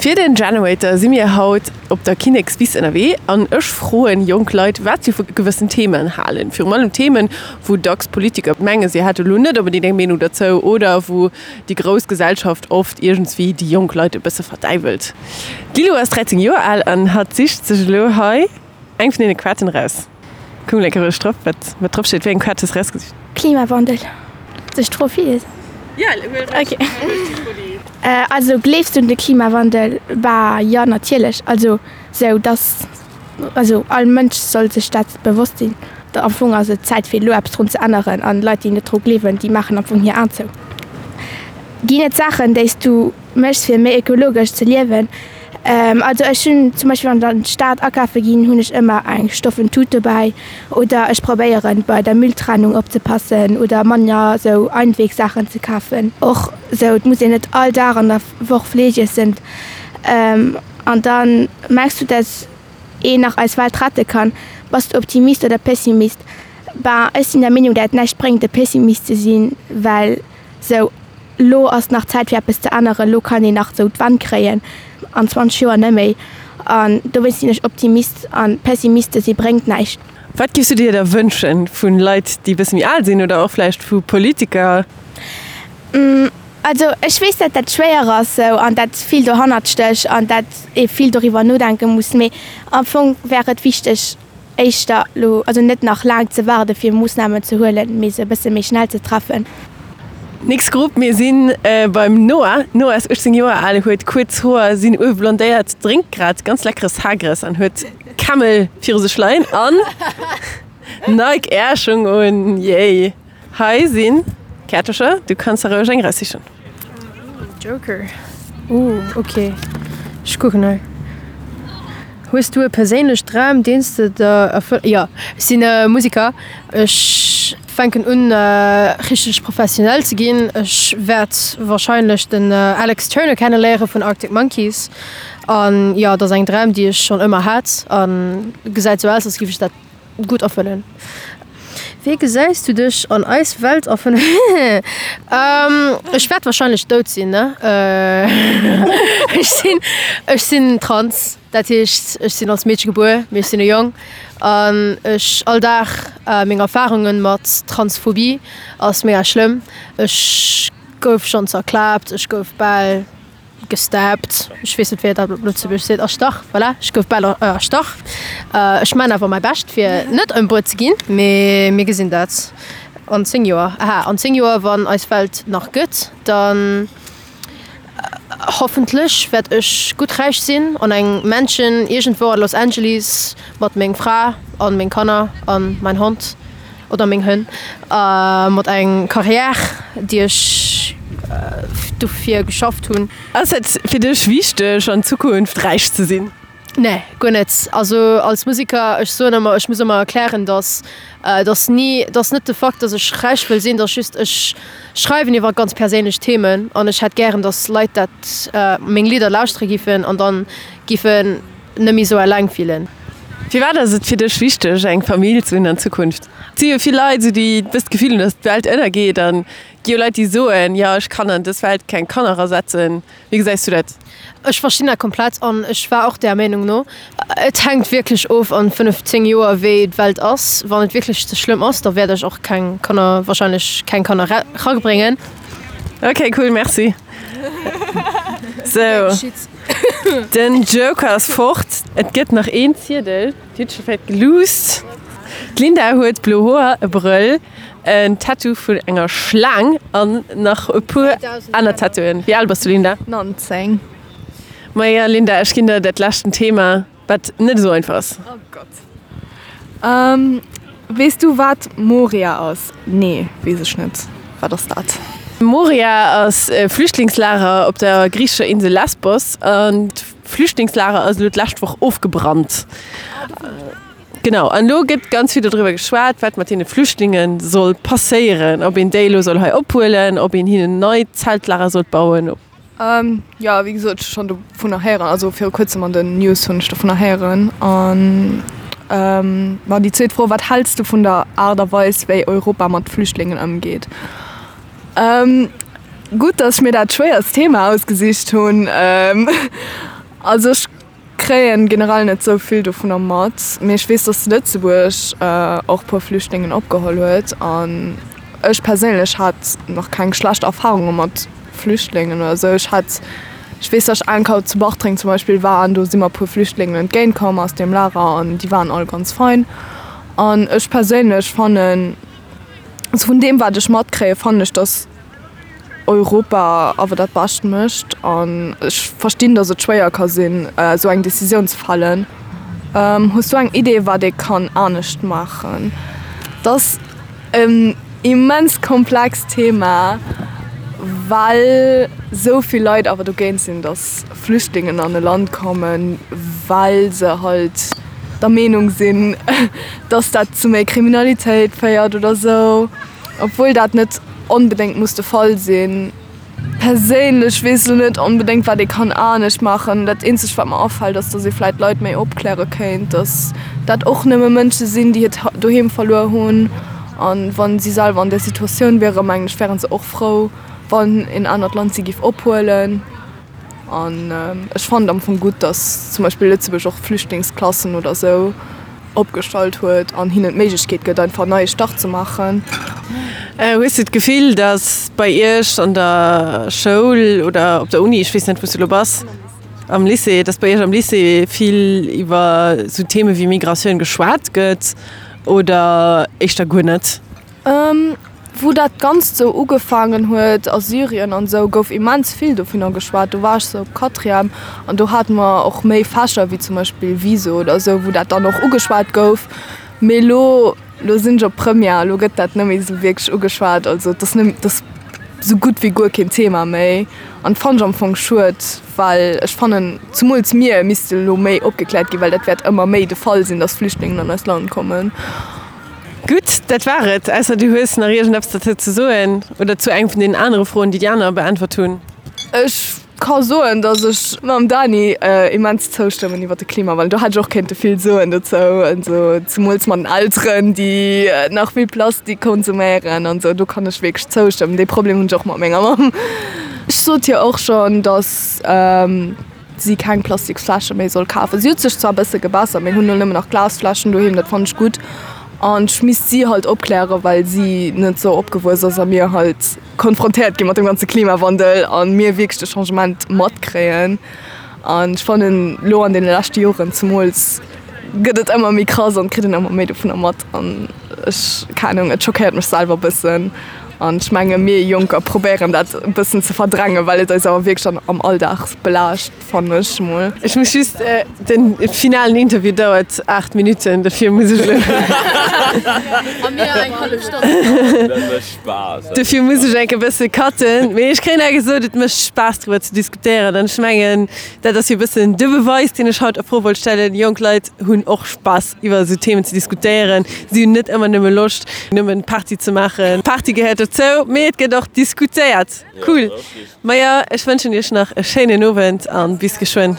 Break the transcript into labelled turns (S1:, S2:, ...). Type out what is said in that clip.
S1: Fir den Generator si mir haut op der Kinnekswiss ënnerwee an ech froen jonk Leit, wat si vu gewëssen Themen halen. Virun allem Themen, wou dacks Politiker mengen, si hätte lo net onbedéngt eng Meenung derzou oder wou déi grouss Gesellschaft oft iergendswéi déi jonk Leit e bësse verdäiwelt. D'Lilou ass 13 Joer al an hatt sicht sech elo hei eng vun deene Kaarten eraus. Kuck mol eng Kéier roueg drop, wat wat drop steet. Wéi eng Kaart hues de erausgesicht?
S2: Klimawandel. Soll ech d'Fro virliesen?
S1: Ja, huel
S2: roueg. Also gleefs du un de Klimawandel? Bah jo, natierlech. Also sou dass, also all Mënsch soll sech dat bewosst sinn. Am Fong ass et Zäit fir elo eppes drun ze änneren an Leit déi net dru gleewen, déi maachen am Fong hir Aen zou. Ginn et Saachen déi s du méchs fir méi ökologesch ze liewen? Also ech hunn zum Beispill wann ech an d'Stad akafe ginn, hunn ech ëmmer eng stoffen Tut dobäi oder ech probéieren bei der Mülltrennung opzepassen oder manner sou Einwegsaachen ze kafen. Och sou et muss een net all Dag an der Woch Fleesch iessen. An dann mengs du dass een nach eis Welt rette kann? Bass du Optimist oder Pessimist? Ben ech sinn der Meenung dat et näischt bréngt e Pessimist ze sinn, well Sou, lo ass nach Zäit fir eppes ze änneren, lo kann een nach sou d'Wand kréien, an 20 Joer net méi. An dowéinst sinn ech Optimist an Pessimiste si bréngt näischt.
S1: Wat giffs du dir da wënschen vu Leit déi e bësse méi al sinn oder och vläicht vu Politiker?
S2: Also ech weess dat dat schwéier ass sou an dat vill dohannert stécht an dat ee vill doriwwer nodenke muss, mee am Fong wär et wichteg, éischter elo, also net nach laang ze waarde fir Moossnamen ze huelen, mee se e bësse méi schnell ze treffen.
S1: Nächst Grupp, mir si beim Noah. Noah ass 18 Joer al, huet kuerz Hoer, sinn uewe blondéiert, drénkt grad ganz leckere Sagres an huet Camel viru sech leien an Nike Air Schung un. Yay! Hei sinn Käertercher, du kanns der roueg eng eraussichen.
S3: Joker, Ooh ok, ech kucken hei. Hues du e perséinlech Dram deen s de der erfëll. Jo, ech sinn e Musiker. Ech fänken un richteg professionell ze ginn. Ech wäert wahrscheinlech den Alex Turner kenne léiere vun Arctic Monkeys an jo, et ass eng Dram déi ech schonn ëmmer hat an gesäit sou aus als géif ech dat Gutt erfëllen. Wéi gesäis du dech an eis Welt a 5 Ech wäert wahrscheinlech dout sinn, ne? Ech sinn, ech sinn trans, dat heescht ech sinn als Meedche gebuer, mee ech sinn e Jong. An ech all Dag meng Erfarunge mat Transphobie ass mega schlëmm. Ech gouf schonn zerklaapt, ech gouf bal. Gestabbed, ech weess net wéi een dat op Lëtzebuergesch seet, erstach, voilà, ech gouf bal erstach. Ech maan awer mäi Bescht fir net ëmbruet ze ginn, mee mir gesinn dat an 10 Joer. Aha, an 10 Joer wann eis Welt nach gëtt, dann hoffentlech wäert ech gutt räich sinn an eng Mansion iergendwou an Los Angeles mat meng Fra an meng Kanner an mein Hond. Oder meng Hënn. Mat eng Carrière, déi ech dofir geschafft hunn.
S1: Ass et fir dech wichteg an Zukunft räich ze sinn?
S3: Nee, guer net. Also als Museker, ech soen ëmmer, ech muss ëmmer erklären, datt datt ni, datt net de Fakt, datt ech räich wëll sinn, datt just ech schreiwen iwwer ganz perséinlech Themen an ech hätt gären, datt Leit dat meng Lidder lauschtere giffen an dann giffen net méi sou eleng fillen.
S1: Firwat ass et fir dech wichteg eng Famill ze hunn an Zukunft? Et si jo vill Leit esou déi e bëssen d'Gefill hunn, datt d'Welt ënnergeet an et gi jo Leit déi soen, jo ech kann an dës Welt keng Kanner erasetzen. Wéi gesäis du dat?
S3: Ech verstinn dat komplett an ech war och där Meenung no. Et hänkt wierklech of an 5, 10 Joer wéi d'Welt ass. Wann et wierklech ze schlëmm ass, da wäert ech och keng Kanner, wahrscheinlech keng Kanner erabréngen.
S1: Ok cool, merci. Sou. Den Joker ass fort. Et gëtt nach een Ziedel. Dir hutt scho vläit geluusst. D'Linda huet blo Hoer, e Brëll, en Tattoo vun enger Schlaang an nach e puer aner Tattooen. Wéi al bass du, Linda?
S4: 19.
S1: Maja, Linda, ech ginn der dat leschten Thema, wat net esou einfach ass.
S4: Oh Gott. Weess du wat Moria ass? Nee, weess ech net. Wat ass dat?
S1: Moria ass e Flüchtlingslager op der griichescher Insel Lesbos an d'Flüchtlingslager ass elo d'lescht Woch ofgebrannt. Genau, an elo gëtt ganz vill dodriwwer geschwat, wat mat deene Flüchtlinge soll passéieren, ob een déi elo soll hei ophuelen, ob een hinnen nei Zeltlager sollt bauen.
S4: Jo, wéi gesot, ech hu schonn dovunner héieren, also viru kuerzem an den News hunn ech dovunner héieren. An ma déi zweet Fro, Wat häls du vun der Aart a Weis, wéi Europa mat Flüchtlingen ëmgeet? Gutt, datt ech mir dat schwéierst Thema ausgesicht hunn. Also ech kréien generell net sou vill dovunner mat, mee ech weess, dass Lëtzebuerg och puer Flüchtlingen opgeholl huet an ech perséinlech hat nach keng schlecht Erfarunge mat Flüchtlingen oder sou. Ech hat, ech weess, dass ech eng Keier zu Bartreng zum Beispill war an do si mer e puer Flüchtlingen entgéint komm aus deem Lager an déi waren all ganz fein an ech perséinlech fannen, also vun deem wat ech matkréie fannen ech, dass Europa awer dat Bescht mécht an ech verstinn, datt et schwéier ka sinn, esou eng Decisioun ze fällen. Hues du eng Idee, wat ee kann anescht maachen? Dat ass en immens komplext Thema, well esou vill Leit awer dogéint sinn, datt Flüchtlingen an e Land kommen, well se halt der Meenung sinn, datt dat zu méi Kriminalitéit féiert oder esou. Obwuel dat net onbedéngt muss de Fall sinn. Perséinlech weess elo net onbedéngt wat ee kann anescht maachen. Dat eenzegt wat mer afält ass, datt ee vläit d'Leit méi opkläre kéint, datt dat och nëmme Mënsche sinn, déi hiert Doheem verluer hunn. An wa si selwer an där Situatioun wieren, mengen ech, wäre se och frou, wann een anert Land si géif ophuelen. An ech fannen et am Fong gutt, datt zum Beispill Lëtzebuerg och Flüchtlingsklassen oder esou opgestallt huet an hinnen d'Méiglechkeet gëtt, einfach en neie Start ze maachen.
S1: Hues du d'Gefill, datt bei Iech an der Schoul oder op der Uni, ech weess net wou s du elo bass, am Lycée, datt bei Iech am Lycée vill iwwer esou Theme wéi Migratioun geschwat gëtt oder éischter guer net?
S4: Wou dat Ganzt sou ugefaangen huet a Syrien an sou, gouf immens vill dovunner geschwat. Do war ech sou op Quatrième an do hate mer och méi Fächer wéi zum Beispill Viso oder sou, wou dat dann och ugeschwat gouf. Mee elo, elo sinn ech op Première, elo gëtt dat net méi sou wierklech ugeschwat. Also et ass net, et ass sou gutt wéi guer keen Thema méi an fannen ech am Fong schued, well ech fannen, zemools mir misste elo méi opgekläert ginn, well dat wäert ëmmer méi de Fall sinn, dass Flüchtlingen an eist Land kommen.
S1: Gutt, dat war et. Ausser du hues nach iergendeppes derzou ze soen oder zu engem vun deenen anere Froen, déi déi aner beäntwert hunn.
S4: Ech ka soen, datt ech mam Dani immens zoustëmmen iwwer de Klimawandel. Do hätt ech och kéinte vill soen dozou, also zemools mat den Elteren, déi nach vill Plastik konsuméieren an esou. Do kann ech wierklech zoustëmmen. Dee Problem hunn ech och mat menger Mamm. Ech sot hir och schonn, datt. si keng Plastiksfläsche méi soll kafen. Si huet sech zwar e bësse gebessert, mir hunn elo nëmmen nach Glasfläschen doheem, dat fannen ech gutt. An ech misst si halt opklären, well si net sou opgewuess ass a mir halt konfrontéiert gi mat dem ganze Klimawandel a mir wierklech de Changement matkréien. An ech fannen elo an deene leschte Joren zemools gëtt et ëmmer méi krass an et kritt een ëmmer méi dovunner mat. An ech, keng Anung, et schockéiert mech selwer e bëssen. An ech menge mir Jonker probéieren dat e bëssen ze verdrängen, well et eis awer wierklech dann am Alldag belaascht, fannen ech mol.
S1: Ech muss just, den finalen Interview dauert 8 Minutten, dofir muss ech elo.
S3: A mir eng hallef Stonn.
S5: Dat mécht Spaass.
S1: Dofir muss ech enk e bësse cutten. Mee ech kréien awer gesot, et mécht Spaass driwwer ze diskutéieren. An ech mengen, dat ass jo e bëssen de Beweis, deen ech haut a Fro wollt stellen, Jonk Leit hunn och Spaass iwwer esou Themen ze diskutéieren. Si hunn net ëmmer nëmme Loscht, nëmmen Party ze maachen. Party gehéiert dozou, mee et gëtt och diskutéiert. Cool. Maja, ech wënschen iech nach e schéinen Owend an bis geschwënn.